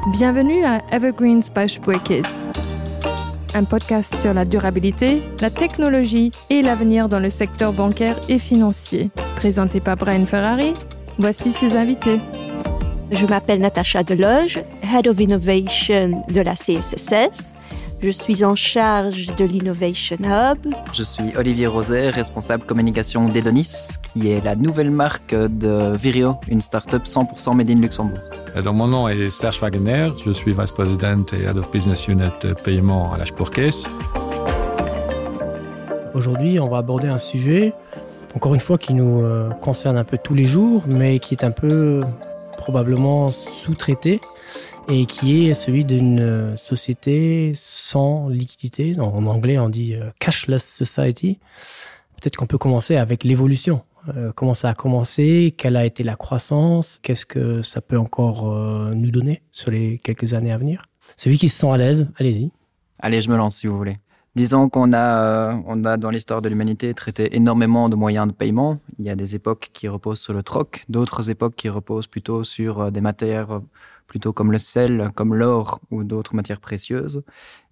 Bienvenue à Evergreens by Spuerkeess. Un podcast sur la durabilité, la technologie et l'avenir dans le secteur bancaire et financier. Présenté par Brian Ferrari, voici ses invités. Je m'appelle Natacha Deloge, Head of Innovation de la CSSF. Je suis en charge de l'Innovation Hub. Je suis Olivier Roset, responsable communication d'Edonis, qui est la nouvelle marque de Virio, une start-up 100% made in Luxembourg. Donc mon nom est Serge Wagner, je suis vice-président et Head of Business Unit Paiement à la Spurcase. Aujourd'hui, on va aborder un sujet, encore une fois, qui nous euh, concerne un peu tous les jours, mais qui est un peu probablement sous-traité et qui est celui d'une euh, société sans liquidité. En anglais, on dit euh, cashless society. Peut-être qu'on peut commencer avec l'évolution. Euh, comment ça a commencé, quelle a été la croissance, qu'est-ce que ça peut encore euh, nous donner sur les quelques années à venir. Celui qui se sent à l'aise, allez-y. Allez, je me lance si vous voulez. Disons qu'on a, euh, on a dans l'histoire de l'humanité traité énormément de moyens de paiement. Il y a des époques qui reposent sur le troc, d'autres époques qui reposent plutôt sur euh, des matières euh, plutôt comme le sel, comme l'or ou d'autres matières précieuses.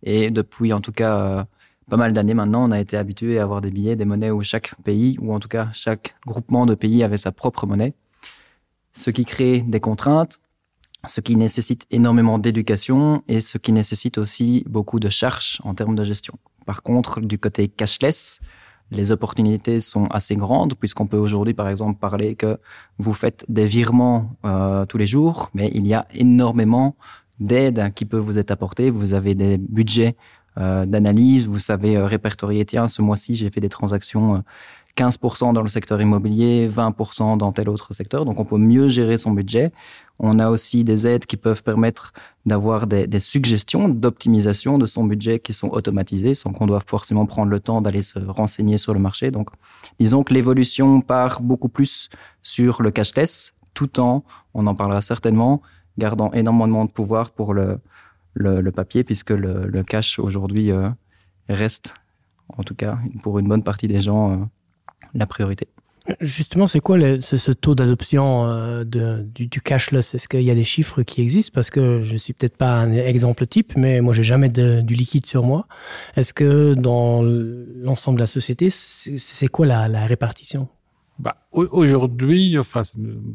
Et depuis en tout cas pas mal d'années maintenant, on a été habitué à avoir des billets, des monnaies où chaque pays ou en tout cas chaque groupement de pays avait sa propre monnaie. Ce qui crée des contraintes, ce qui nécessite énormément d'éducation et ce qui nécessite aussi beaucoup de charges en termes de gestion. Par contre, du côté cashless, les opportunités sont assez grandes puisqu'on peut aujourd'hui par exemple parler que vous faites des virements euh, tous les jours, mais il y a énormément d'aides qui peuvent vous être apportées. Vous avez des budgets euh, d'analyse, vous savez euh, répertorier tiens ce mois-ci j'ai fait des transactions euh, 15% dans le secteur immobilier, 20% dans tel autre secteur. Donc on peut mieux gérer son budget. On a aussi des aides qui peuvent permettre d'avoir des, des suggestions d'optimisation de son budget qui sont automatisées sans qu'on doive forcément prendre le temps d'aller se renseigner sur le marché. Donc disons que l'évolution part beaucoup plus sur le cashless tout en, on en parlera certainement, gardant énormément de pouvoir pour le, le, le papier puisque le, le cash aujourd'hui euh, reste en tout cas pour une bonne partie des gens euh, la priorité. Justement, c'est quoi le, ce, ce taux d'adoption euh, du, du cashless Est-ce qu'il y a des chiffres qui existent Parce que je suis peut-être pas un exemple type, mais moi j'ai jamais de, du liquide sur moi. Est-ce que dans l'ensemble de la société, c'est quoi la, la répartition Bah, aujourd'hui, enfin,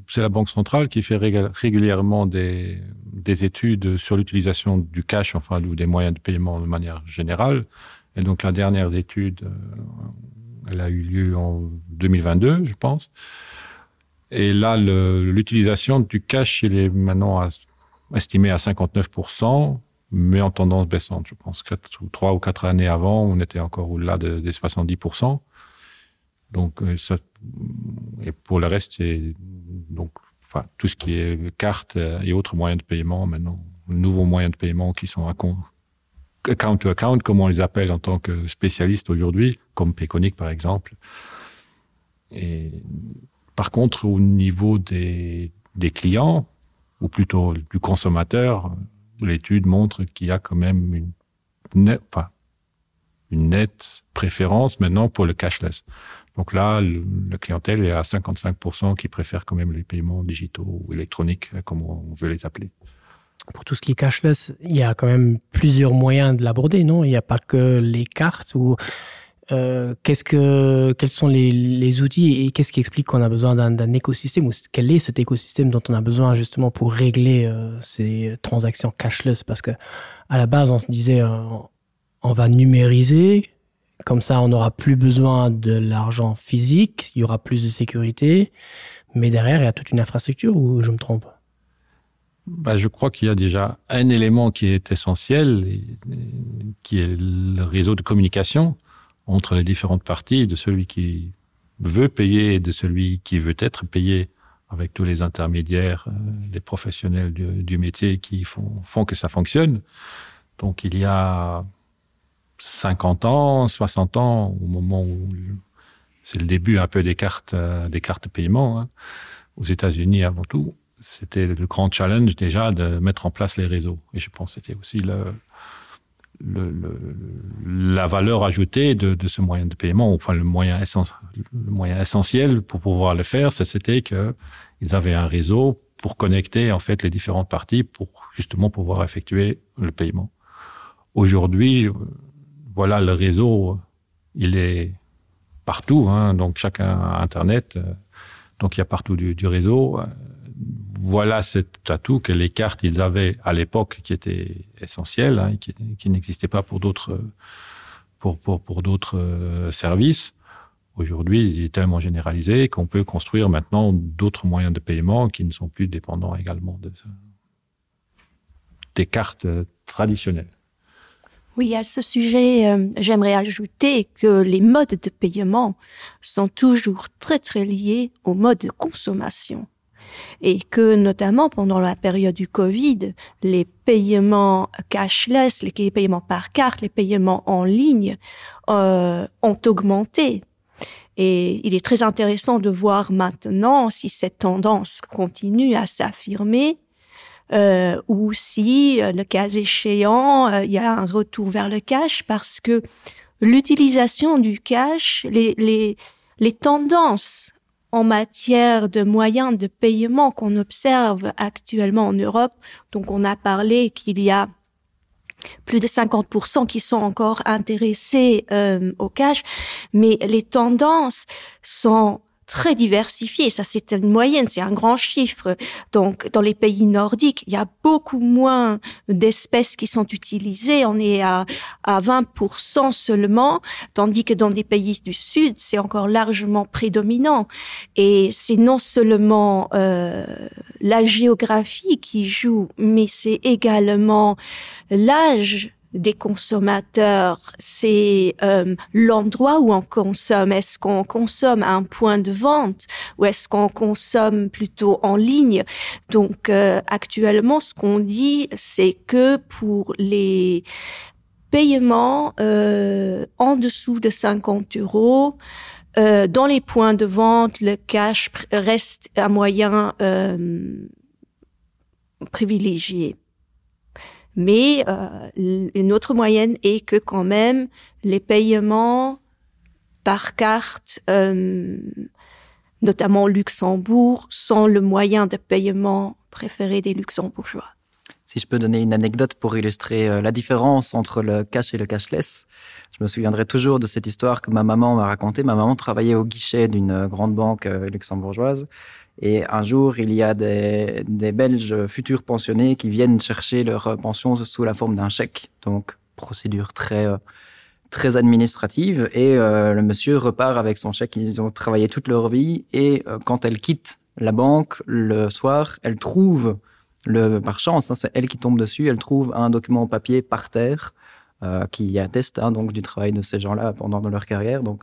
c'est la Banque centrale qui fait régulièrement des, des études sur l'utilisation du cash enfin, ou des moyens de paiement de manière générale. Et donc la dernière étude, euh, elle a eu lieu en 2022, je pense. Et là, l'utilisation du cash il est maintenant à, estimé à 59%, mais en tendance baissante. Je pense 4 ou 3 ou 4 années avant, on était encore au-delà de, des 70%. Donc, euh, ça, et pour le reste, c'est donc enfin, tout ce qui est carte et autres moyens de paiement maintenant, nouveaux moyens de paiement qui sont à compte account to account, comme on les appelle en tant que spécialistes aujourd'hui, comme Peconic par exemple. Et par contre, au niveau des, des clients, ou plutôt du consommateur, l'étude montre qu'il y a quand même une, net, enfin, une nette préférence maintenant pour le cashless. Donc là, le, la clientèle est à 55% qui préfère quand même les paiements digitaux ou électroniques, comme on veut les appeler pour tout ce qui est cashless, il y a quand même plusieurs moyens de l'aborder, non Il n'y a pas que les cartes ou euh, qu'est-ce que quels sont les, les outils et qu'est-ce qui explique qu'on a besoin d'un écosystème ou quel est cet écosystème dont on a besoin justement pour régler euh, ces transactions cashless parce que à la base on se disait euh, on va numériser comme ça on n'aura plus besoin de l'argent physique il y aura plus de sécurité mais derrière il y a toute une infrastructure ou je me trompe Bah, je crois qu'il y a déjà un élément qui est essentiel, et, qui est le réseau de communication entre les différentes parties, de celui qui veut payer et de celui qui veut être payé avec tous les intermédiaires, euh, les professionnels du, du métier qui font, font que ça fonctionne. Donc il y a 50 ans, 60 ans, au moment où c'est le début un peu des cartes, euh, des cartes paiement, hein, aux États-Unis avant tout, c'était le grand challenge déjà de mettre en place les réseaux. Et je pense c'était aussi le, le, le, la valeur ajoutée de, de ce moyen de paiement, enfin le moyen, essen, le moyen essentiel pour pouvoir le faire, c'était qu'ils avaient un réseau. pour connecter en fait les différentes parties pour justement pouvoir effectuer le paiement. Aujourd'hui, voilà le réseau, il est partout hein, donc chacun a internet, euh, donc il y a partout du, du réseau. Voilà cet atout que les cartes ils avaient à l'époque qui était essentiel hein, qui, qui n'existait pas pour d'autres pour, pour, pour d'autres euh, services. Aujourd'hui, il est tellement généralisé qu'on peut construire maintenant d'autres moyens de paiement qui ne sont plus dépendants également de ce, des cartes traditionnelles. Oui, à ce sujet, euh, j'aimerais ajouter que les modes de paiement sont toujours très très liés aux modes de consommation et que notamment pendant la période du Covid, les paiements cashless, les paiements par carte, les paiements en ligne euh, ont augmenté. Et il est très intéressant de voir maintenant si cette tendance continue à s'affirmer euh, ou si, euh, le cas échéant, euh, il y a un retour vers le cash parce que l'utilisation du cash, les, les, les tendances en matière de moyens de paiement qu'on observe actuellement en Europe, donc on a parlé qu'il y a plus de 50% qui sont encore intéressés euh, au cash, mais les tendances sont très diversifié. Ça, c'est une moyenne, c'est un grand chiffre. Donc, dans les pays nordiques, il y a beaucoup moins d'espèces qui sont utilisées. On est à, à 20% seulement, tandis que dans des pays du Sud, c'est encore largement prédominant. Et c'est non seulement euh, la géographie qui joue, mais c'est également l'âge des consommateurs, c'est euh, l'endroit où on consomme. Est-ce qu'on consomme à un point de vente ou est-ce qu'on consomme plutôt en ligne? Donc euh, actuellement, ce qu'on dit, c'est que pour les paiements euh, en dessous de 50 euros, euh, dans les points de vente, le cash reste un moyen euh, privilégié. Mais euh, une autre moyenne est que quand même les paiements par carte, euh, notamment Luxembourg, sont le moyen de paiement préféré des luxembourgeois. Si je peux donner une anecdote pour illustrer euh, la différence entre le cash et le cashless, je me souviendrai toujours de cette histoire que ma maman m'a racontée. Ma maman travaillait au guichet d'une euh, grande banque euh, luxembourgeoise. Et un jour, il y a des, des Belges futurs pensionnés qui viennent chercher leur pension sous la forme d'un chèque. Donc procédure très très administrative et euh, le monsieur repart avec son chèque. Ils ont travaillé toute leur vie et euh, quand elle quitte la banque le soir, elle trouve le par chance c'est elle qui tombe dessus, elle trouve un document papier par terre euh, qui atteste hein, donc du travail de ces gens-là pendant leur carrière. Donc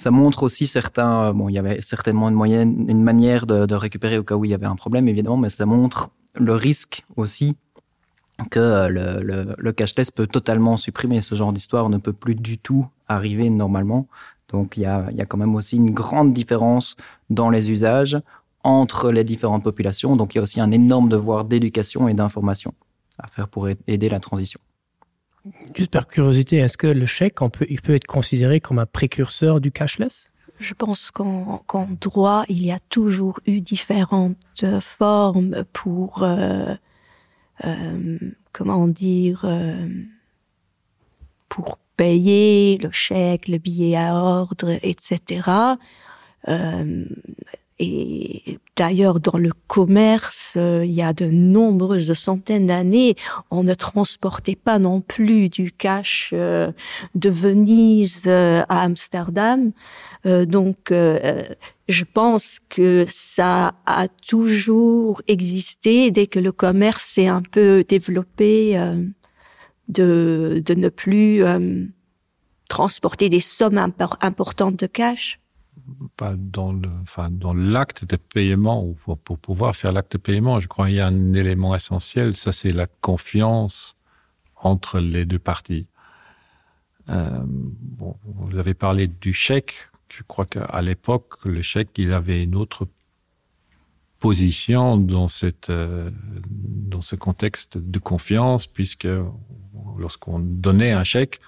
ça montre aussi certains euh, bon il y avait certainement une moyenne une manière de, de récupérer au cas où il y avait un problème évidemment mais ça montre le risque aussi que euh, le, le, le cashless peut totalement supprimer ce genre d'histoire ne peut plus du tout arriver normalement donc il y a, il y a quand même aussi une grande différence dans les usages entre les différentes populations donc il y a aussi un énorme devoir d'éducation et d'information à faire pour aider la transition Juste par curiosité, est-ce que le chèque on peut, il peut être considéré comme un précurseur du cashless? Je pense qu'en qu droit, il y a toujours eu différentes formes pour euh, euh, comment dire euh, pour payer le chèque, le billet à ordre, etc. Euh, et d'ailleurs dans le commerce euh, il y a de nombreuses centaines d'années on ne transportait pas non plus du cash euh, de venise euh, à amsterdam euh, donc euh, je pense que ça a toujours existé dès que le commerce s'est un peu développé euh, de, de ne plus euh, transporter des sommes impor importantes de cash pas dans le enfin dans l'acte de paiement ou pour, pour pouvoir faire l'acte de paiement je crois il y a un élément essentiel ça c'est la confiance entre les deux parties euh, bon, vous avez parlé du chèque je crois qu'à l'époque le chèque il avait une autre position dans cette euh, dans ce contexte de confiance puisque lorsqu'on donnait un chèque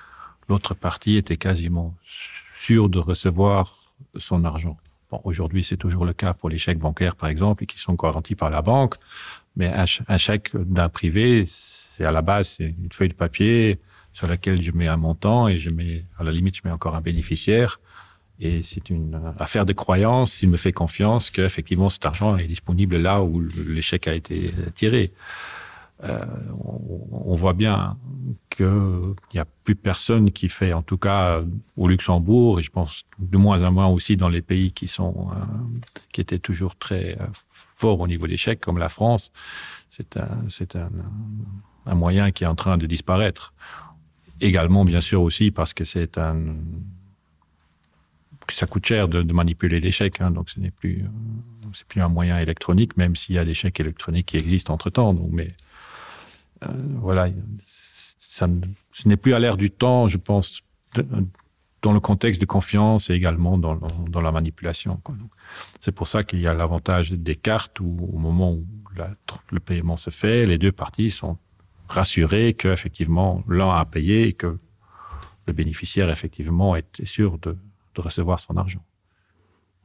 l'autre partie était quasiment sûre de recevoir son argent. Bon, aujourd'hui, c'est toujours le cas pour les chèques bancaires, par exemple, qui sont garantis par la banque. Mais un, un chèque d'un privé, c'est à la base c'est une feuille de papier sur laquelle je mets un montant et je mets à la limite je mets encore un bénéficiaire. Et c'est une affaire de croyance s'il me fait confiance qu'effectivement cet argent est disponible là où l'échec a été tiré. Euh, on, on voit bien qu'il n'y a plus personne qui fait en tout cas au Luxembourg et je pense de moins en moins aussi dans les pays qui sont euh, qui étaient toujours très euh, forts au niveau d'échec comme la France c'est un c'est un, un moyen qui est en train de disparaître également bien sûr aussi parce que c'est un ça coûte cher de, de manipuler l'échec donc ce n'est plus c'est plus un moyen électronique même s'il y a des chèques électroniques qui existent entre temps donc mais euh, voilà ça ce n'est plus à l'air du temps je pense de, dans le contexte de confiance et également dans, dans la manipulation c'est pour ça qu'il y a l'avantage des cartes où au moment où la, le paiement se fait les deux parties sont rassurées que effectivement l'un a payé et que le bénéficiaire effectivement est sûr de, de recevoir son argent.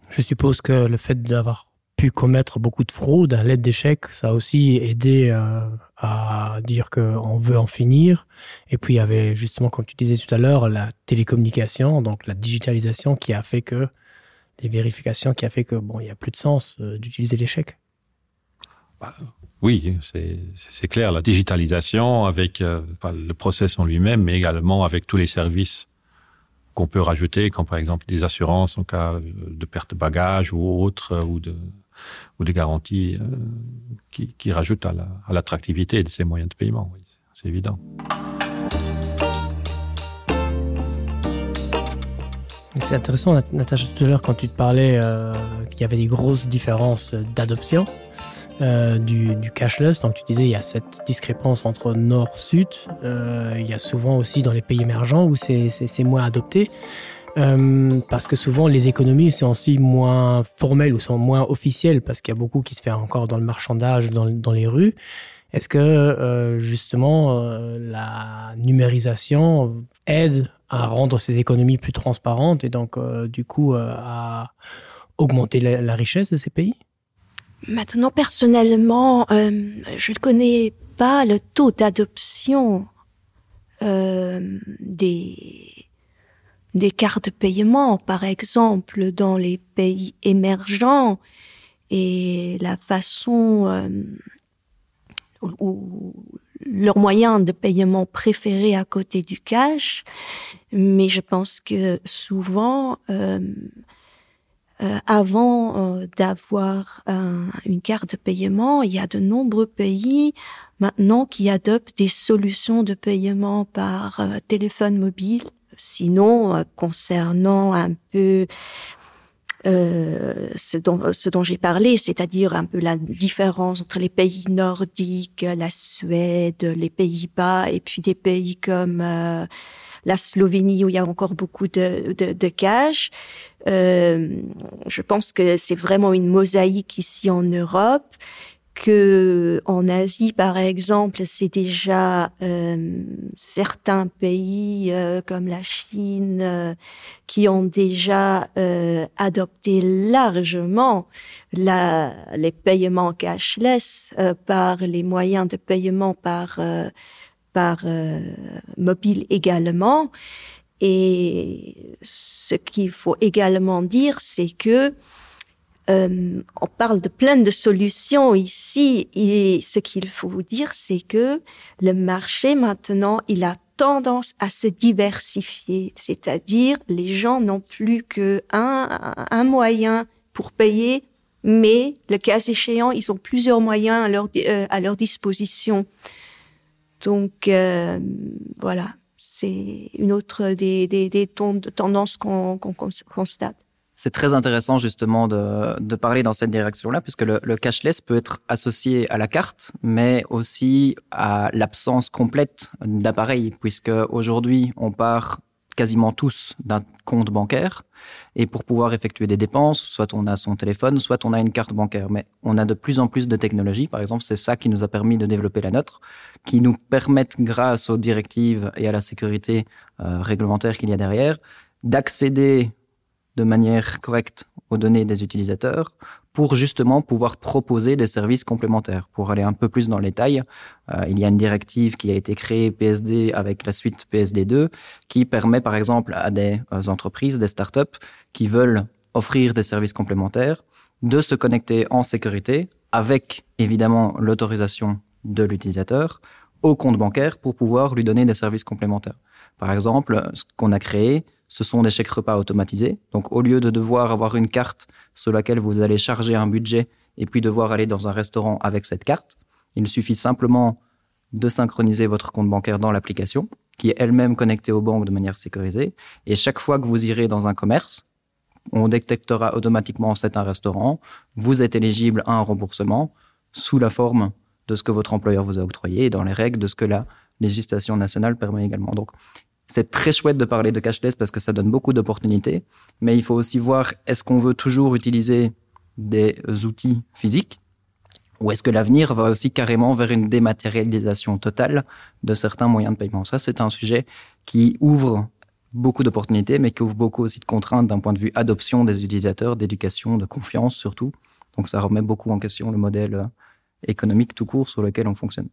Je suppose que le fait d'avoir pu commettre beaucoup de fraudes à l'aide d'échecs, ça a aussi aidé euh, à dire qu'on veut en finir. Et puis il y avait justement, comme tu disais tout à l'heure, la télécommunication, donc la digitalisation qui a fait que les vérifications qui a fait que bon, il n'y a plus de sens euh, d'utiliser l'échec. Bah, oui, c'est clair, la digitalisation avec euh, enfin, le process en lui-même, mais également avec tous les services qu'on peut rajouter, comme par exemple des assurances en cas de perte de bagages ou autre euh, ou de, ou des garanties euh, qui, qui rajoutent à l'attractivité la, de ces moyens de paiement. Oui, c'est évident. C'est intéressant, Natacha, tout à l'heure, quand tu te parlais euh, qu'il y avait des grosses différences d'adoption euh, du, du cashless, donc tu disais il y a cette discrépance entre nord-sud, euh, il y a souvent aussi dans les pays émergents où c'est moins adopté. Euh, parce que souvent les économies sont aussi moins formelles ou sont moins officielles parce qu'il y a beaucoup qui se fait encore dans le marchandage dans, dans les rues. Est-ce que euh, justement euh, la numérisation aide à rendre ces économies plus transparentes et donc euh, du coup euh, à augmenter la, la richesse de ces pays? Maintenant personnellement, euh, je ne connais pas le taux d'adoption euh, des, des cartes de paiement, par exemple dans les pays émergents et la façon euh, ou leur moyen de paiement préféré à côté du cash mais je pense que souvent euh, euh, avant euh, d'avoir un, une carte de paiement il y a de nombreux pays maintenant qui adoptent des solutions de paiement par euh, téléphone mobile sinon euh, concernant un peu euh, ce dont, ce dont j'ai parlé, c'est-à-dire un peu la différence entre les pays nordiques, la Suède, les Pays-Bas et puis des pays comme euh, la Slovénie où il y a encore beaucoup de, de, de cash. Euh, je pense que c'est vraiment une mosaïque ici en Europe que en Asie par exemple c'est déjà euh, certains pays euh, comme la Chine euh, qui ont déjà euh, adopté largement la, les paiements cashless euh, par les moyens de paiement par euh, par euh, mobile également et ce qu'il faut également dire c'est que euh, on parle de plein de solutions ici et ce qu'il faut vous dire c'est que le marché maintenant il a tendance à se diversifier c'est à dire les gens n'ont plus que un, un moyen pour payer mais le cas échéant ils ont plusieurs moyens à leur, euh, à leur disposition donc euh, voilà c'est une autre des, des, des tendances qu'on qu qu constate. C'est très intéressant justement de, de parler dans cette direction-là, puisque le, le cashless peut être associé à la carte, mais aussi à l'absence complète d'appareil, puisque aujourd'hui on part quasiment tous d'un compte bancaire et pour pouvoir effectuer des dépenses, soit on a son téléphone, soit on a une carte bancaire. Mais on a de plus en plus de technologies, par exemple, c'est ça qui nous a permis de développer la nôtre, qui nous permettent, grâce aux directives et à la sécurité euh, réglementaire qu'il y a derrière, d'accéder de manière correcte aux données des utilisateurs pour justement pouvoir proposer des services complémentaires. Pour aller un peu plus dans les détail, euh, il y a une directive qui a été créée PSD avec la suite PSD2 qui permet par exemple à des euh, entreprises, des startups qui veulent offrir des services complémentaires de se connecter en sécurité avec évidemment l'autorisation de l'utilisateur au compte bancaire pour pouvoir lui donner des services complémentaires. Par exemple, ce qu'on a créé, ce sont des chèques repas automatisés. Donc au lieu de devoir avoir une carte sur laquelle vous allez charger un budget et puis devoir aller dans un restaurant avec cette carte, il suffit simplement de synchroniser votre compte bancaire dans l'application qui est elle-même connectée aux banques de manière sécurisée. Et chaque fois que vous irez dans un commerce, on détectera automatiquement c'est un restaurant, vous êtes éligible à un remboursement sous la forme de ce que votre employeur vous a octroyé et dans les règles de ce que la législation nationale permet également. Donc c'est très chouette de parler de cashless parce que ça donne beaucoup d'opportunités, mais il faut aussi voir est-ce qu'on veut toujours utiliser des outils physiques ou est-ce que l'avenir va aussi carrément vers une dématérialisation totale de certains moyens de paiement. Ça, c'est un sujet qui ouvre beaucoup d'opportunités, mais qui ouvre beaucoup aussi de contraintes d'un point de vue adoption des utilisateurs, d'éducation, de confiance surtout. Donc ça remet beaucoup en question le modèle euh, économique tout court sur lequel on fonctionne.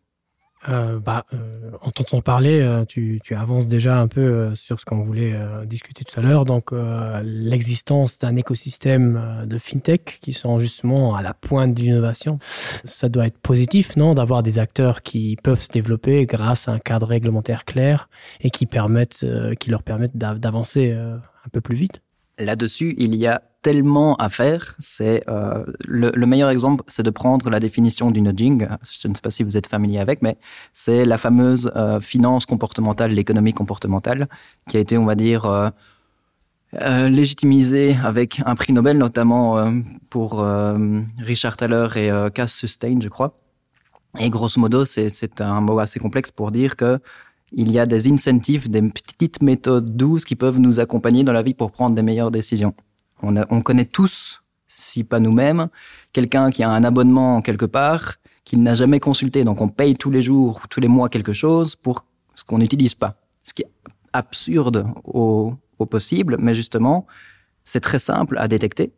Euh, bah, euh, en t'entendant parler, euh, tu, tu avances déjà un peu euh, sur ce qu'on voulait euh, discuter tout à l'heure. Donc euh, l'existence d'un écosystème euh, de fintech qui sont justement à la pointe de l'innovation, ça doit être positif non d'avoir des acteurs qui peuvent se développer grâce à un cadre réglementaire clair et qui permettent euh, qui leur permettent d'avancer euh, un peu plus vite. Là-dessus, il y a tellement à faire. C'est euh, le, le meilleur exemple, c'est de prendre la définition du nudging. Je ne sais pas si vous êtes familier avec, mais c'est la fameuse euh, finance comportementale, l'économie comportementale, qui a été, on va dire, euh, euh, légitimisée avec un prix Nobel, notamment euh, pour euh, Richard Thaler et euh, Cass Sustain, je crois. Et grosso modo, c'est un mot assez complexe pour dire que il y a des incentives, des petites méthodes douces qui peuvent nous accompagner dans la vie pour prendre des meilleures décisions. On, a, on connaît tous, si pas nous-mêmes, quelqu'un qui a un abonnement quelque part qu'il n'a jamais consulté. Donc on paye tous les jours, tous les mois quelque chose pour ce qu'on n'utilise pas. Ce qui est absurde au, au possible, mais justement, c'est très simple à détecter.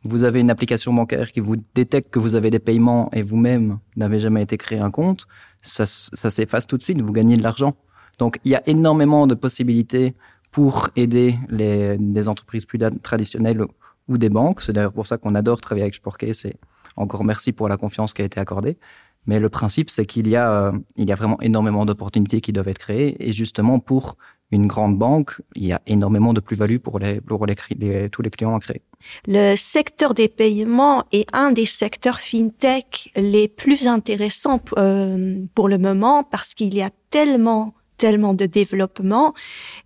Vous avez une application bancaire qui vous détecte que vous avez des paiements et vous-même n'avez jamais été créé un compte, ça, ça s'efface tout de suite, vous gagnez de l'argent. Donc il y a énormément de possibilités pour aider les, les entreprises plus traditionnelles ou des banques. C'est d'ailleurs pour ça qu'on adore travailler avec Sporké. C'est encore merci pour la confiance qui a été accordée. Mais le principe, c'est qu'il y, a, euh, il y a vraiment énormément d'opportunités qui doivent être créées. Et justement, pour une grande banque, il y a énormément de plus-value pour, les, pour les, les, tous les clients à créer. Le secteur des paiements est un des secteurs fintech les plus intéressants euh, pour le moment parce qu'il y a tellement tellement de développement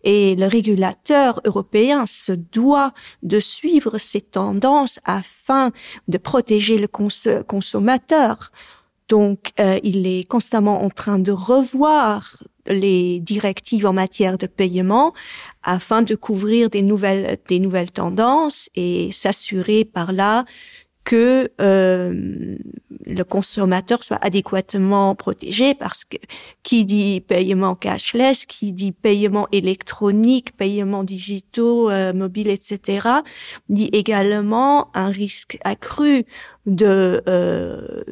et le régulateur européen se doit de suivre ces tendances afin de protéger le cons consommateur. Donc euh, il est constamment en train de revoir les directives en matière de paiement afin de couvrir des nouvelles, des nouvelles tendances et s'assurer par là que euh, le consommateur soit adéquatement protégé parce que qui dit paiement cashless, qui dit paiement électronique, paiement digitaux, euh, mobile, etc., dit également un risque accru de, euh,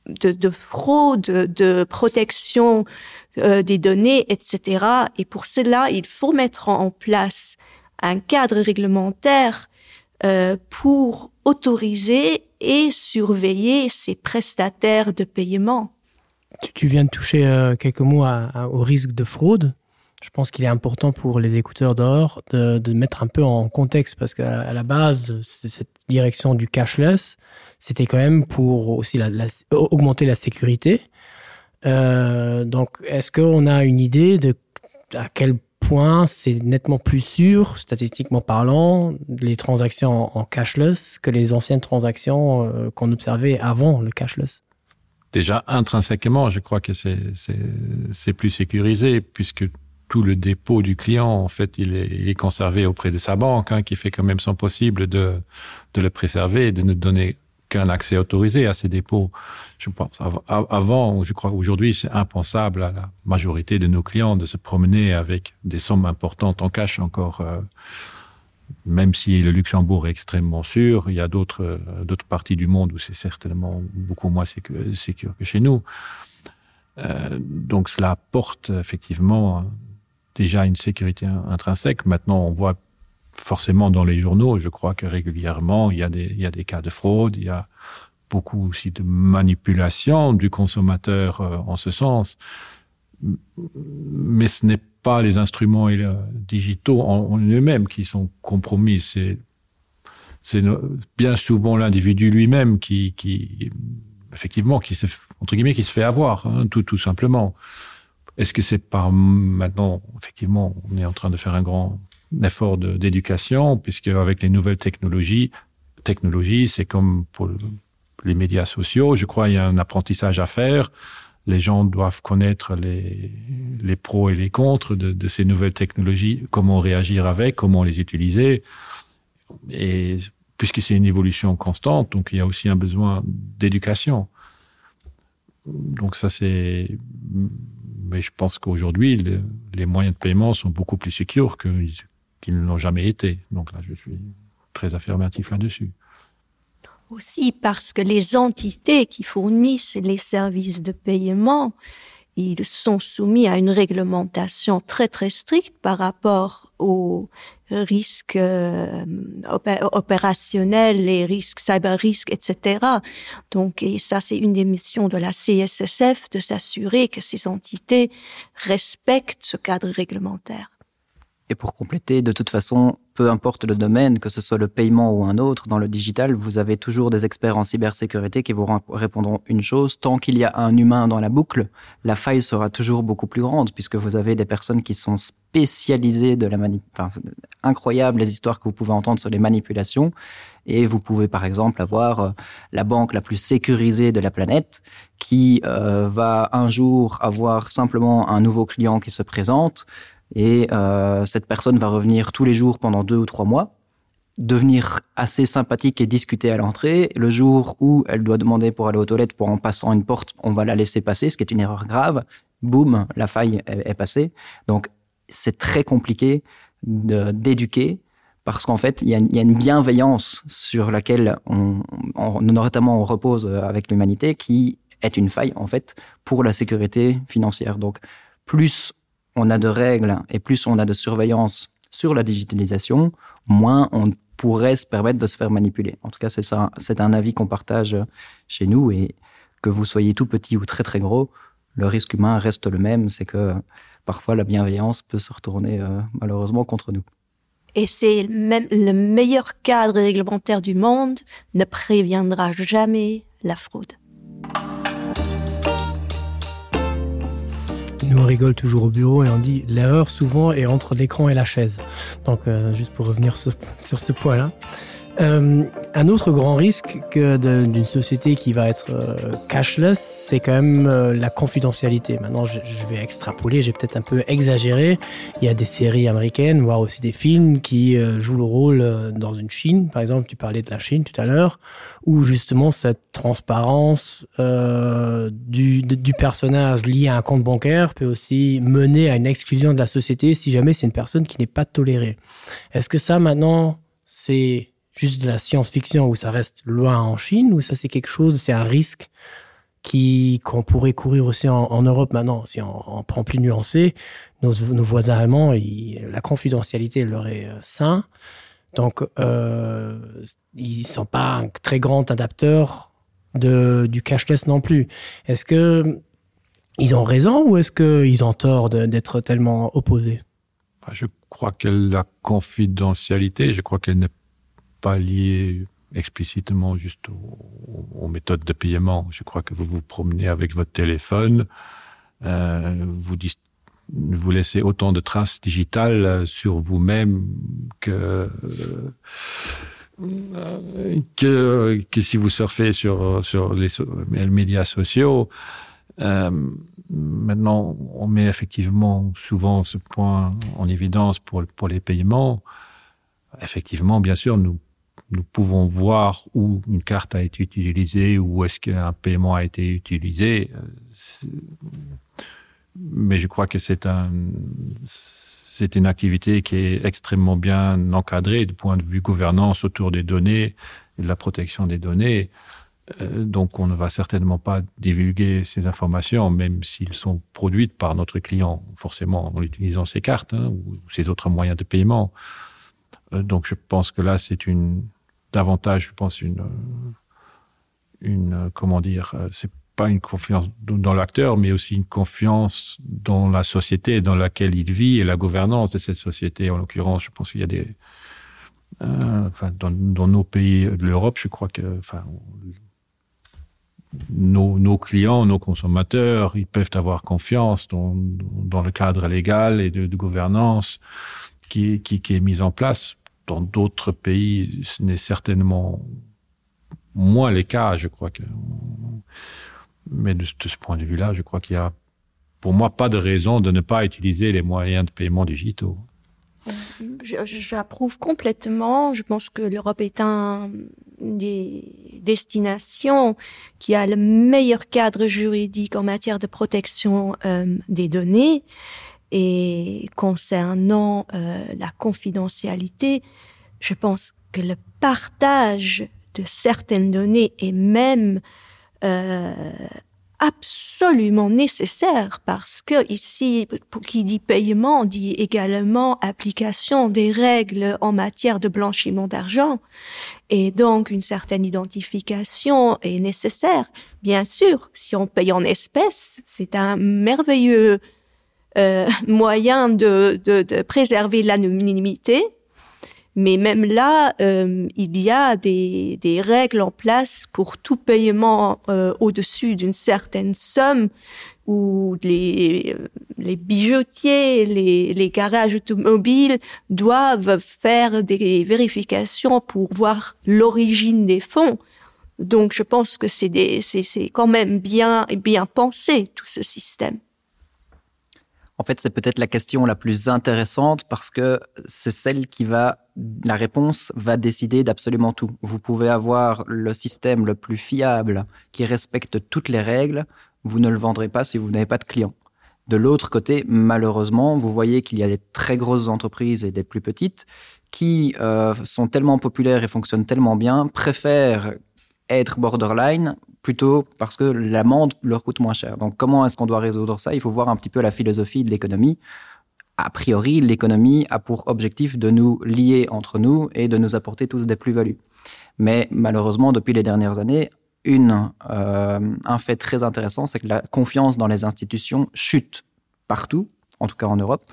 de, de fraude, de protection euh, des données, etc. Et pour cela, il faut mettre en place un cadre réglementaire euh, pour autoriser et surveiller ces prestataires de paiement. Tu, tu viens de toucher euh, quelques mots à, à, au risque de fraude. Je pense qu'il est important pour les écouteurs d'or de, de mettre un peu en contexte parce qu'à la base, cette direction du cashless, c'était quand même pour aussi la, la, augmenter la sécurité. Euh, donc est-ce qu'on a une idée de à quel point c'est nettement plus sûr, statistiquement parlant, les transactions en, en cashless que les anciennes transactions euh, qu'on observait avant le cashless? Déjà intrinsèquement, je crois que c'est plus sécurisé puisque tout le dépôt du client en fait il est, il est conservé auprès de sa banque hein, qui fait quand même son possible de, de le préserver et de ne donner qu'un accès autorisé à ces dépôts. Je pense avant, je crois aujourd'hui c'est impensable à la majorité de nos clients de se promener avec des sommes importantes en cash encore euh, Même si le Luxembourg est extrêmement sûr, il y a d'autres parties du monde où c'est certainement beaucoup moins sécure que chez nous. Euh, donc cela apporte effectivement déjà une sécurité intrinsèque. Maintenant, on voit forcément dans les journaux, je crois que régulièrement, il y a des, il y a des cas de fraude, il y a beaucoup aussi de manipulation du consommateur euh, en ce sens. Mais ce n'est pas les instruments euh, digitaux en, en eux-mêmes qui sont compromis, c'est c'est bien souvent l'individu lui-même qui, qui effectivement qui se entre guillemets qui se fait avoir hein, tout tout simplement. Est-ce que c'est par maintenant effectivement on est en train de faire un grand effort d'éducation puisque avec les nouvelles technologies technologies c'est comme pour les médias sociaux je crois il y a un apprentissage à faire les gens doivent connaître les, les pros et les contres de, de ces nouvelles technologies comment réagir avec comment les utiliser et puisque c'est une évolution constante donc il y a aussi un besoin d'éducation donc ça c'est mais je pense qu'aujourd'hui le, les moyens de paiement sont beaucoup plus sécures qu'ils qu ne l'ont jamais été donc là je suis très affirmatif là dessus aussi parce que les entités qui fournissent les services de paiement ils sont soumis à une réglementation très très stricte par rapport aux risques euh, opérationnels, les risques cyber risques, etc. Donc et ça c'est une des missions de la CSSF de s'assurer que ces entités respectent ce cadre réglementaire. Et pour compléter, de toute façon, peu importe le domaine, que ce soit le paiement ou un autre, dans le digital, vous avez toujours des experts en cybersécurité qui vous répondront une chose. Tant qu'il y a un humain dans la boucle, la faille sera toujours beaucoup plus grande puisque vous avez des personnes qui sont spécialisées de la manip enfin, incroyable les histoires que vous pouvez entendre sur les manipulations. Et vous pouvez par exemple avoir euh, la banque la plus sécurisée de la planète qui euh, va un jour avoir simplement un nouveau client qui se présente et euh, cette personne va revenir tous les jours pendant deux ou trois mois devenir assez sympathique et discuter à l'entrée le jour où elle doit demander pour aller aux toilettes pour en passant une porte on va la laisser passer ce qui est une erreur grave boum la faille est, est passée donc c'est très compliqué d'éduquer parce qu'en fait il y, y a une bienveillance sur laquelle on, on notamment on repose avec l'humanité qui est une faille en fait pour la sécurité financière donc plus on a de règles et plus on a de surveillance sur la digitalisation, moins on pourrait se permettre de se faire manipuler. En tout cas, c'est ça, c'est un avis qu'on partage chez nous et que vous soyez tout petit ou très très gros, le risque humain reste le même, c'est que parfois la bienveillance peut se retourner euh, malheureusement contre nous. Et c'est même le meilleur cadre réglementaire du monde ne préviendra jamais la fraude. Nous on rigole toujours au bureau et on dit l'erreur souvent est entre l'écran et la chaise. Donc euh, juste pour revenir sur, sur ce point là. Euh, un autre grand risque que d'une société qui va être euh, cashless, c'est quand même euh, la confidentialité. Maintenant, je, je vais extrapoler, j'ai peut-être un peu exagéré. Il y a des séries américaines, voire aussi des films qui euh, jouent le rôle euh, dans une Chine. Par exemple, tu parlais de la Chine tout à l'heure, où justement cette transparence euh, du, de, du personnage lié à un compte bancaire peut aussi mener à une exclusion de la société si jamais c'est une personne qui n'est pas tolérée. Est-ce que ça maintenant, c'est juste de la science-fiction où ça reste loin en Chine ou ça c'est quelque chose, c'est un risque qui qu'on pourrait courir aussi en, en Europe maintenant si on, on prend plus nuancé nos, nos voisins allemands ils, la confidentialité leur est euh, sain donc euh, ils sont pas un très grand adapteur de du cashless non plus est-ce que ils ont raison ou est-ce que ils ont tort d'être tellement opposés je crois que la confidentialité je crois qu'elle n'est pas liée explicitement juste aux, aux méthodes de paiement. Je crois que vous vous promenez avec votre téléphone, euh, vous, vous laissez autant de traces digitales sur vous-même que, euh, que, que si vous surfez sur, sur les, les médias sociaux. Euh, maintenant, on met effectivement souvent ce point en évidence pour, pour les paiements. Effectivement, bien sûr, nous nous pouvons voir où une carte a été utilisée ou est-ce qu'un paiement a été utilisé. Mais je crois que c'est un. C'est une activité qui est extrêmement bien encadrée du point de vue gouvernance autour des données et de la protection des données. Euh, donc on ne va certainement pas divulguer ces informations, même s'ils sont produites par notre client, forcément en utilisant ses cartes hein, ou ses autres moyens de paiement. Euh, donc je pense que là c'est une davantage je pense une euh, une comment dire c'est pas une confiance dans l'acteur mais aussi une confiance dans la société dans laquelle il vit et la gouvernance de cette société en l'occurrence je pense qu'il y a des euh, enfin dans, dans nos pays de l'europe je crois que enfin nos, nos clients nos consommateurs ils peuvent avoir confiance dans, dans le cadre légal et de, de gouvernance qui, qui, qui est mise en place dans d'autres pays ce n'est certainement moins les cas je crois que mais de, de ce point de vue là je crois qu'il y a pour moi pas de raison de ne pas utiliser les moyens de paiement digitaux j'approuve complètement je pense que l'europe est un des destinations qui a le meilleur cadre juridique en matière de protection euh, des données et concernant euh, la confidentialité je pense que le partage de certaines données est même euh, absolument nécessaire parce que ici pour qui dit paiement dit également application des règles en matière de blanchiment d'argent et donc une certaine identification est nécessaire bien sûr si on paye en espèces c'est un merveilleux euh, moyen de, de, de préserver l'anonymité mais même là euh, il y a des, des règles en place pour tout paiement euh, au-dessus d'une certaine somme où les, les bijoutiers, les, les garages automobiles doivent faire des vérifications pour voir l'origine des fonds. Donc je pense que c'est quand même bien et bien pensé tout ce système. En fait, c'est peut-être la question la plus intéressante parce que c'est celle qui va la réponse va décider d'absolument tout. Vous pouvez avoir le système le plus fiable qui respecte toutes les règles, vous ne le vendrez pas si vous n'avez pas de clients. De l'autre côté, malheureusement, vous voyez qu'il y a des très grosses entreprises et des plus petites qui euh, sont tellement populaires et fonctionnent tellement bien, préfèrent être borderline plutôt parce que l'amende leur coûte moins cher. Donc comment est-ce qu'on doit résoudre ça Il faut voir un petit peu la philosophie de l'économie. A priori, l'économie a pour objectif de nous lier entre nous et de nous apporter tous des plus-values. Mais malheureusement, depuis les dernières années, une, euh, un fait très intéressant, c'est que la confiance dans les institutions chute partout, en tout cas en Europe,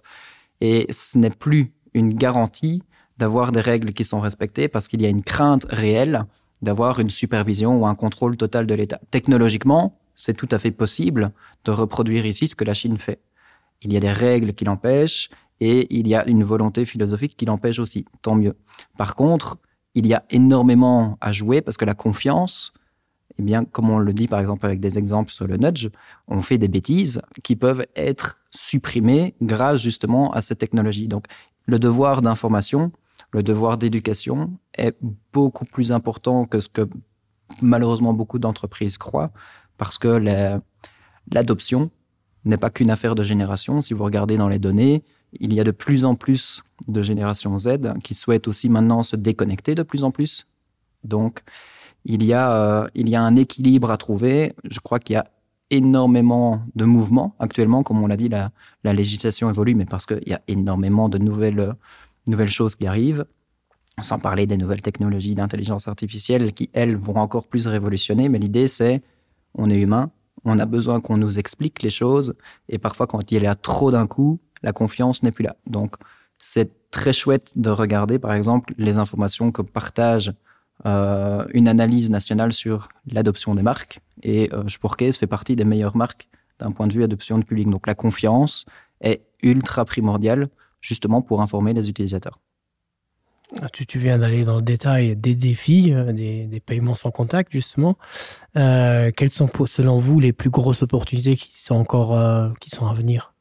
et ce n'est plus une garantie d'avoir des règles qui sont respectées parce qu'il y a une crainte réelle d'avoir une supervision ou un contrôle total de l'État. Technologiquement, c'est tout à fait possible de reproduire ici ce que la Chine fait. Il y a des règles qui l'empêchent et il y a une volonté philosophique qui l'empêche aussi, tant mieux. Par contre, il y a énormément à jouer parce que la confiance, eh bien, comme on le dit par exemple avec des exemples sur le nudge, on fait des bêtises qui peuvent être supprimées grâce justement à cette technologie. Donc le devoir d'information, le devoir d'éducation est beaucoup plus important que ce que malheureusement beaucoup d'entreprises croient parce que l'adoption n'est pas qu'une affaire de génération. Si vous regardez dans les données, il y a de plus en plus de génération Z qui souhaitent aussi maintenant se déconnecter de plus en plus. Donc il y a, euh, il y a un équilibre à trouver. Je crois qu'il y a énormément de mouvements actuellement, comme on l'a dit, la, la législation évolue, mais parce qu'il y a énormément de nouvelles, nouvelles choses qui arrivent sans parler des nouvelles technologies d'intelligence artificielle qui elles vont encore plus révolutionner mais l'idée c'est on est humain on a besoin qu'on nous explique les choses et parfois quand il y a trop d'un coup la confiance n'est plus là donc c'est très chouette de regarder par exemple les informations que partage euh, une analyse nationale sur l'adoption des marques et euh, Sporkes fait partie des meilleures marques d'un point de vue adoption du public donc la confiance est ultra primordiale justement pour informer les utilisateurs. Ah, tu, tu viens d'aller dans le détail des défis, euh, des, des paiements sans contact justement. Euh, quelles sont pour, selon vous les plus grosses opportunités qui sont encore euh, qui sont à venir?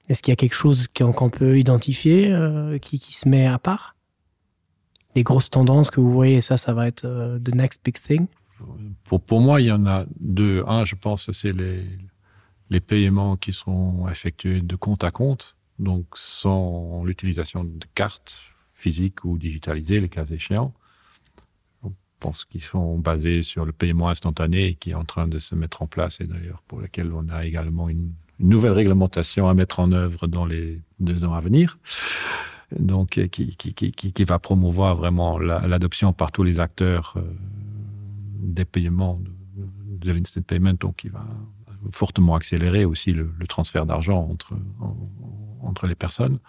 Est-ce qu'il y a quelque chose qu'on qu peut identifier euh, qui, qui se met à part? Des grosses tendances que vous voyez ça ça va être euh, the next big thing? Pour, pour moi, il y en a deux. Un, je pense c'est les, les paiements qui sont effectués de compte à compte. donc sans l'utilisation de cartes physiques ou digitalisées, le cas échéant. Je pense qu'ils sont basés sur le paiement instantané qui est en train de se mettre en place et d'ailleurs pour lequel on a également une, une nouvelle réglementation à mettre en œuvre dans les deux ans à venir donc qui, qui, qui, qui, qui va promouvoir vraiment l'adoption la, par tous les acteurs euh, des paiements de, de l'instant payment donc qui va fortement accélérer aussi le, le transfert d'argent entre, en, entre les personnes.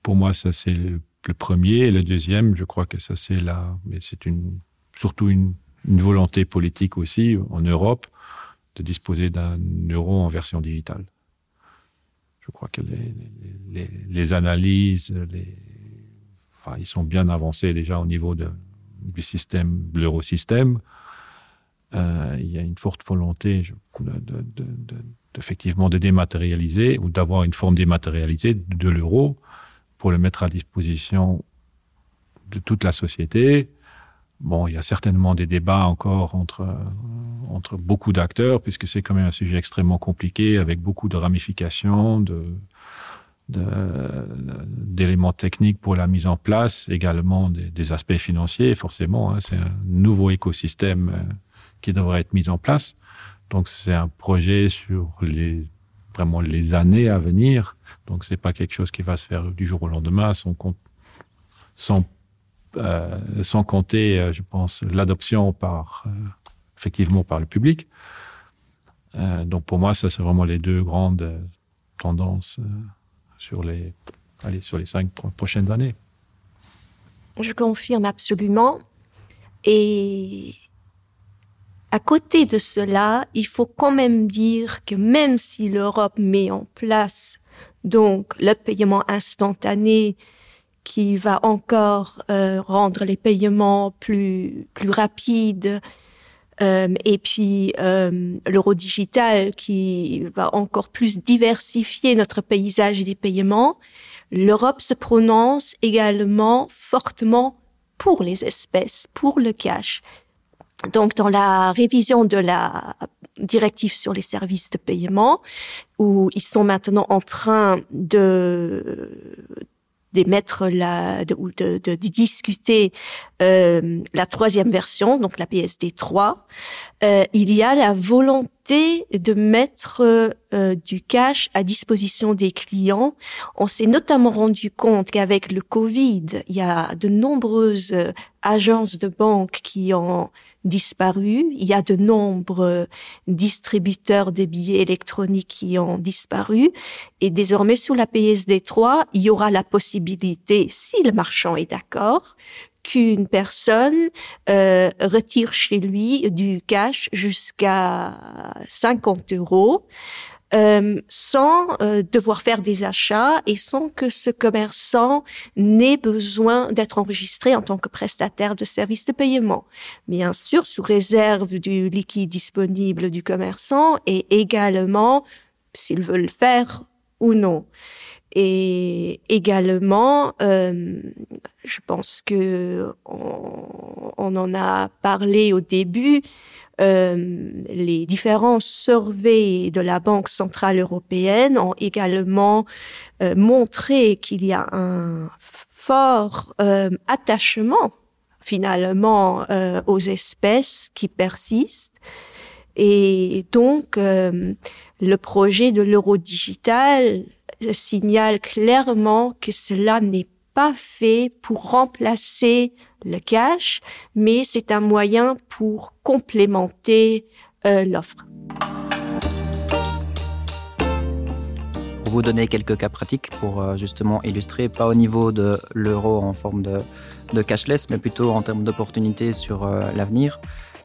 Pour moi, ça c'est le, le premier et le deuxième, je crois que ça c'est là, mais c'est une surtout une, une volonté politique aussi en Europe de disposer d'un euro en version digitale. Je crois que les, les, les analyses, les, enfin, ils sont bien avancés déjà au niveau de, du système l'eurosystème. Euh, il y a une forte volonté je, de, de, de, de, effectivement de dématérialiser ou d'avoir une forme dématérialisée de l'euro pour le mettre à disposition de toute la société. Bon, il y a certainement des débats encore entre, entre beaucoup d'acteurs, puisque c'est quand même un sujet extrêmement compliqué avec beaucoup de ramifications, de, d'éléments techniques pour la mise en place, également des, des aspects financiers, forcément. C'est un nouveau écosystème euh, qui devrait être mis en place. Donc c'est un projet sur les vraiment les années à venir. Donc c'est pas quelque chose qui va se faire du jour au lendemain sans, compte, sans, euh, sans compter, euh, je pense, l'adoption par euh, effectivement par le public. Euh, donc pour moi, ça c'est vraiment les deux grandes euh, tendances euh, sur les, allez, sur les cinq prochaines années. Je confirme absolument. Et à côté de cela, il faut quand même dire que même si l'Europe met en place donc le paiement instantané qui va encore euh, rendre les paiements plus, plus rapides, euh, et puis euh, l'euro digital qui va encore plus diversifier notre paysage des paiements, l'Europe se prononce également fortement pour les espèces, pour le cash. Donc dans la révision de la directive sur les services de paiement, où ils sont maintenant en train de d'émettre la de, ou de, de, de discuter euh, la troisième version, donc la PSD 3, euh, il y a la volonté de mettre euh, du cash à disposition des clients. On s'est notamment rendu compte qu'avec le Covid, il y a de nombreuses agences de banque qui ont disparu. Il y a de nombreux distributeurs des billets électroniques qui ont disparu. Et désormais, sur la PSD3, il y aura la possibilité, si le marchand est d'accord, qu'une personne euh, retire chez lui du cash jusqu'à 50 euros euh, sans euh, devoir faire des achats et sans que ce commerçant n'ait besoin d'être enregistré en tant que prestataire de services de paiement. Bien sûr, sous réserve du liquide disponible du commerçant et également s'il veut le faire ou non. Et également, euh, je pense que on, on en a parlé au début, euh, les différents surveys de la Banque centrale européenne ont également euh, montré qu'il y a un fort euh, attachement finalement euh, aux espèces qui persistent. Et donc euh, le projet de l'euro digital signale clairement que cela n'est pas fait pour remplacer le cash, mais c'est un moyen pour complémenter euh, l'offre. Pour vous donner quelques cas pratiques pour euh, justement illustrer pas au niveau de l'euro en forme de, de cashless, mais plutôt en termes d'opportunités sur euh, l'avenir,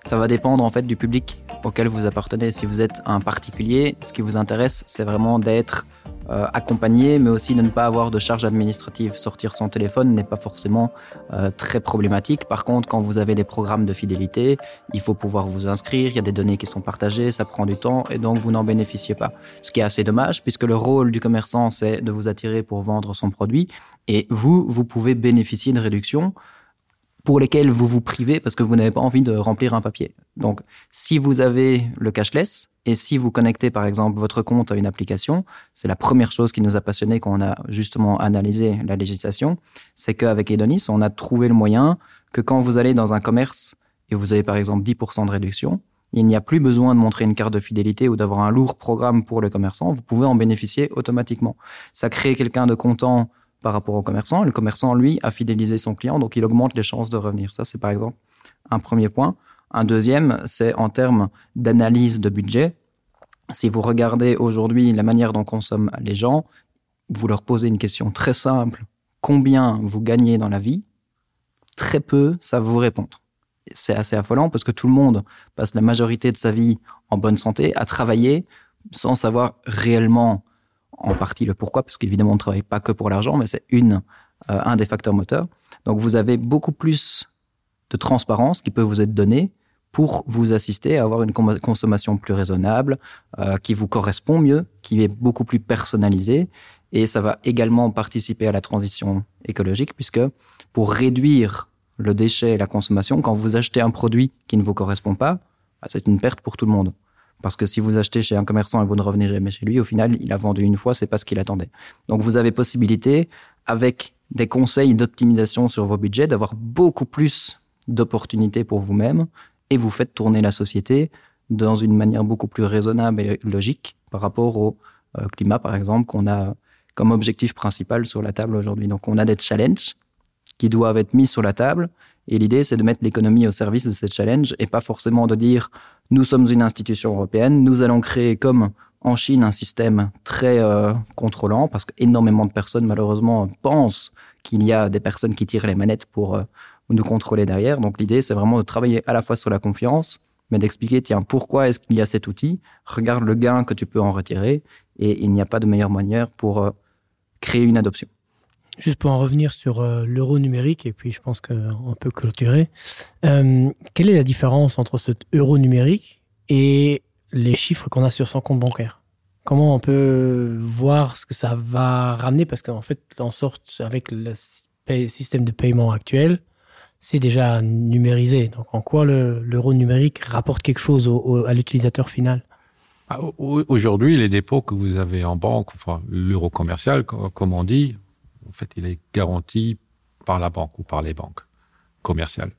ça va dépendre en fait du public auquel vous appartenez. Si vous êtes un particulier, ce qui vous intéresse, c'est vraiment d'être, euh, accompagné, mais aussi de ne pas avoir de charges administratives. Sortir son téléphone n'est pas forcément euh, très problématique. Par contre, quand vous avez des programmes de fidélité, il faut pouvoir vous inscrire, il y a des données qui sont partagées, ça prend du temps et donc vous n'en bénéficiez pas. Ce qui est assez dommage puisque le rôle du commerçant, c'est de vous attirer pour vendre son produit et vous, vous pouvez bénéficier de réductions pour lesquelles vous vous privez parce que vous n'avez pas envie de remplir un papier. Donc si vous avez le cashless, Et si vous connectez par exemple votre compte à une application, c'est la première chose qui nous a passionné quand on a justement analysé la législation, c'est qu'avec Edonis, on a trouvé le moyen que quand vous allez dans un commerce et vous avez par exemple 10% de réduction, il n'y a plus besoin de montrer une carte de fidélité ou d'avoir un lourd programme pour le commerçant, vous pouvez en bénéficier automatiquement. Ça crée quelqu'un de content par rapport au commerçant. Le commerçant, lui, a fidélisé son client, donc il augmente les chances de revenir. Ça, c'est par exemple un premier point. Un deuxième, c'est en termes d'analyse de budget. Si vous regardez aujourd'hui la manière dont consomment les gens, vous leur posez une question très simple combien vous gagnez dans la vie Très peu ça vous répondre. C'est assez affolant parce que tout le monde passe la majorité de sa vie en bonne santé à travailler sans savoir réellement en partie le pourquoi parce qu'évidemment on ne travaille pas que pour l'argent mais c'est une euh, un des facteurs moteurs. Donc vous avez beaucoup plus de transparence qui peut vous être donnée pour vous assister à avoir une consommation plus raisonnable, euh, qui vous correspond mieux, qui est beaucoup plus personnalisée et ça va également participer à la transition écologique puisque pour réduire le déchet et la consommation, quand vous achetez un produit qui ne vous correspond pas, c'est une perte pour tout le monde. Parce que si vous achetez chez un commerçant et vous ne revenez jamais chez lui, au final, il a vendu une fois, c'est pas ce qu'il attendait. Donc vous avez possibilité, avec des conseils d'optimisation sur vos budgets, d'avoir beaucoup plus d'opportunités pour vous-même et vous faites tourner la société dans une manière beaucoup plus raisonnable et logique par rapport au euh, climat, par exemple, qu'on a comme objectif principal sur la table aujourd'hui. Donc on a des challenges qui doivent être mis sur la table et l'idée c'est de mettre l'économie au service de ces challenges et pas forcément de dire nous sommes une institution européenne, nous allons créer comme en Chine un système très euh, contrôlant parce qu'énormément de personnes malheureusement pensent qu'il y a des personnes qui tirent les manettes pour euh, nous contrôler derrière. Donc l'idée c'est vraiment de travailler à la fois sur la confiance, mais d'expliquer tiens pourquoi est-ce qu'il y a cet outil, regarde le gain que tu peux en retirer et il n'y a pas de meilleure manière pour euh, créer une adoption. Juste pour en revenir sur euh, l'euro numérique et puis je pense qu'on peut clôturer. Euh, quelle est la différence entre cet euro numérique et les chiffres qu'on a sur son compte bancaire Comment on peut voir ce que ça va ramener parce qu'en fait en sorte avec le système de paiement actuel, c'est déjà numérisé. Donc en quoi l'euro numérique rapporte quelque chose au, au, à l'utilisateur final ah, Aujourd'hui, les dépôts que vous avez en banque, enfin l'euro commercial, comme on dit, en fait, il est garanti par la banque ou par les banques commerciales.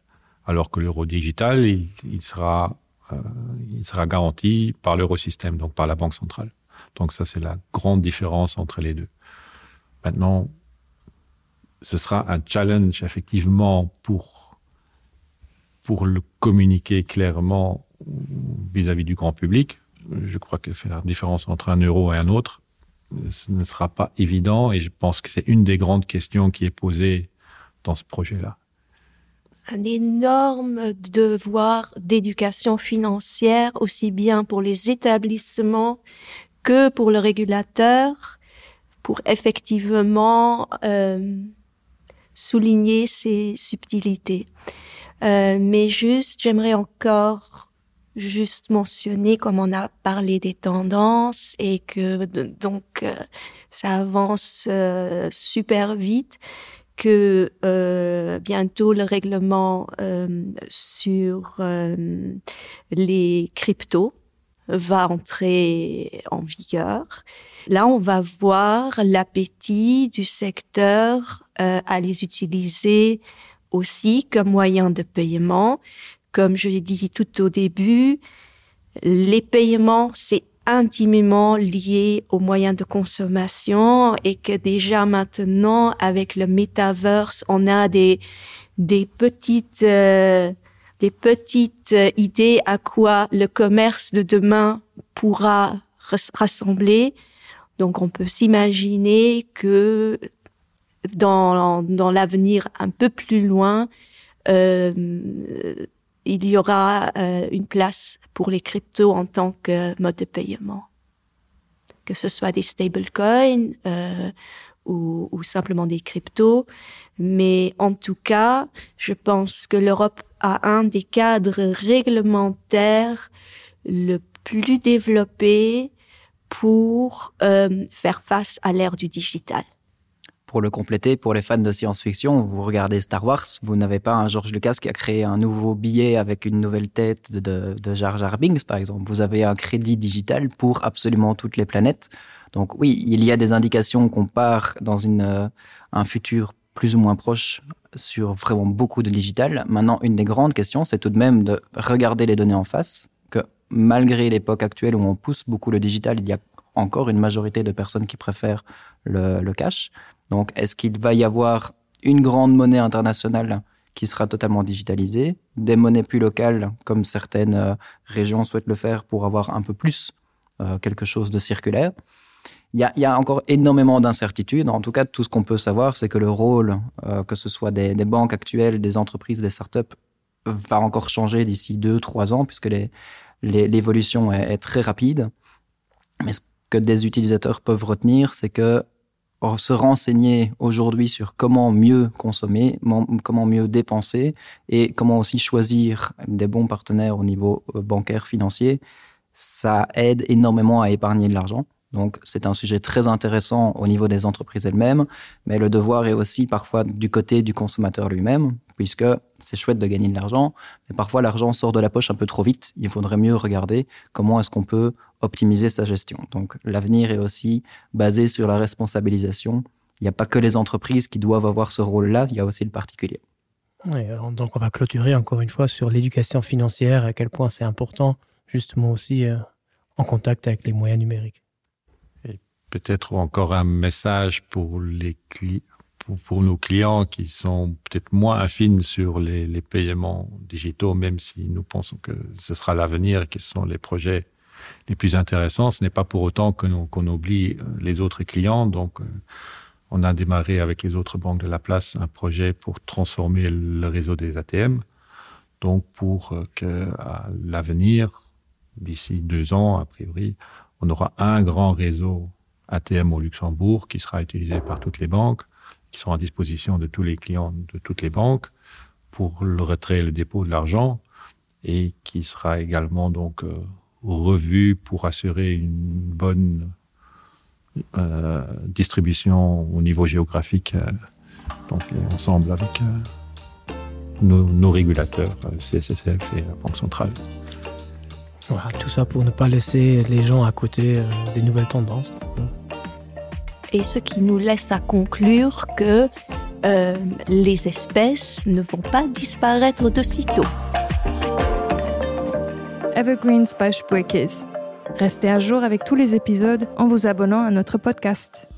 Alors que l'euro digital, il, il, sera, euh, il sera garanti par l'eurosystème, donc par la banque centrale. Donc ça, c'est la grande différence entre les deux. Maintenant, ce sera un challenge effectivement pour, pour le communiquer clairement vis-à-vis -vis du grand public. Je crois que faire la différence entre un euro et un autre, ce ne sera pas évident et je pense que c'est une des grandes questions qui est posée dans ce projet-là. Un énorme devoir d'éducation financière, aussi bien pour les établissements que pour le régulateur, pour effectivement euh, souligner ces subtilités. Euh, mais juste, j'aimerais encore juste mentionner comme on a parlé des tendances et que donc euh, ça avance euh, super vite que euh, bientôt le règlement euh, sur euh, les cryptos va entrer en vigueur. Là, on va voir l'appétit du secteur euh, à les utiliser aussi comme moyen de paiement. Comme je l'ai dit tout au début, les paiements, c'est intimement lié aux moyens de consommation et que déjà maintenant, avec le metaverse, on a des, des petites, euh, des petites euh, idées à quoi le commerce de demain pourra rassembler. Donc on peut s'imaginer que dans, dans l'avenir un peu plus loin, euh, il y aura euh, une place pour les cryptos en tant que mode de paiement. Que ce soit des stablecoins euh, ou, ou simplement des cryptos. Mais en tout cas, je pense que l'Europe a un des cadres réglementaires le plus développé pour euh, faire face à l'ère du digital. Pour le compléter, pour les fans de science-fiction, vous regardez Star Wars, vous n'avez pas un George Lucas qui a créé un nouveau billet avec une nouvelle tête de, de, de Jar Jar Binks, par exemple. Vous avez un crédit digital pour absolument toutes les planètes. Donc oui, il y a des indications qu'on part dans une, euh, un futur plus ou moins proche sur vraiment beaucoup de digital. Maintenant, une des grandes questions, c'est tout de même de regarder les données en face, que malgré l'époque actuelle où on pousse beaucoup le digital, il y a encore une majorité de personnes qui préfèrent le, le cash. Donc est-ce qu'il va y avoir une grande monnaie internationale qui sera totalement digitalisée, des monnaies plus locales comme certaines euh, régions souhaitent le faire pour avoir un peu plus euh, quelque chose de circulaire? Il y, a, il y a encore énormément d'incertitudes. En tout cas, tout ce qu'on peut savoir, c'est que le rôle, euh, que ce soit des, des banques actuelles, des entreprises, des startups, va encore changer d'ici deux, trois ans, puisque l'évolution est, est très rapide. Mais ce que des utilisateurs peuvent retenir, c'est que se renseigner aujourd'hui sur comment mieux consommer, comment mieux dépenser et comment aussi choisir des bons partenaires au niveau euh, bancaire financier, ça aide énormément à épargner de l'argent. Donc c'est un sujet très intéressant au niveau des entreprises elles-mêmes, mais le devoir est aussi parfois du côté du consommateur lui-même, puisque c'est chouette de gagner de l'argent, mais parfois l'argent sort de la poche un peu trop vite. Il faudrait mieux regarder comment est-ce qu'on peut optimiser sa gestion. Donc l'avenir est aussi basé sur la responsabilisation. Il n'y a pas que les entreprises qui doivent avoir ce rôle-là, il y a aussi le particulier. Oui, donc on va clôturer encore une fois sur l'éducation financière, à quel point c'est important justement aussi euh, en contact avec les moyens numériques peut-être encore un message pour les cli pour, pour nos clients qui sont peut-être moins affines sur les, les paiements digitaux, même si nous pensons que ce sera l'avenir, qui sont les projets les plus intéressants. Ce n'est pas pour autant que nous qu'on oublie euh, les autres clients. Donc euh, on a démarré avec les autres banques de la place un projet pour transformer le réseau des ATM. Donc pour euh, que à l'avenir, d'ici deux ans a priori, on aura un grand réseau ATM au Luxembourg qui sera utilisé par toutes les banques, qui sont à disposition de tous les clients de toutes les banques pour le retrait et le dépôt de l'argent et qui sera également donc euh, revu pour assurer une bonne euh, distribution au niveau géographique euh, donc ensemble avec euh, nos, nos régulateurs euh, CSSF et la Banque centrale. Voilà, tout ça pour ne pas laisser les gens à côté euh, des nouvelles tendances. Et ce qui nous laisse à conclure que euh, les espèces ne vont pas disparaître de sitôt. Evergreens by Spuerkeess. Restez à jour avec tous les épisodes en vous abonnant à notre podcast.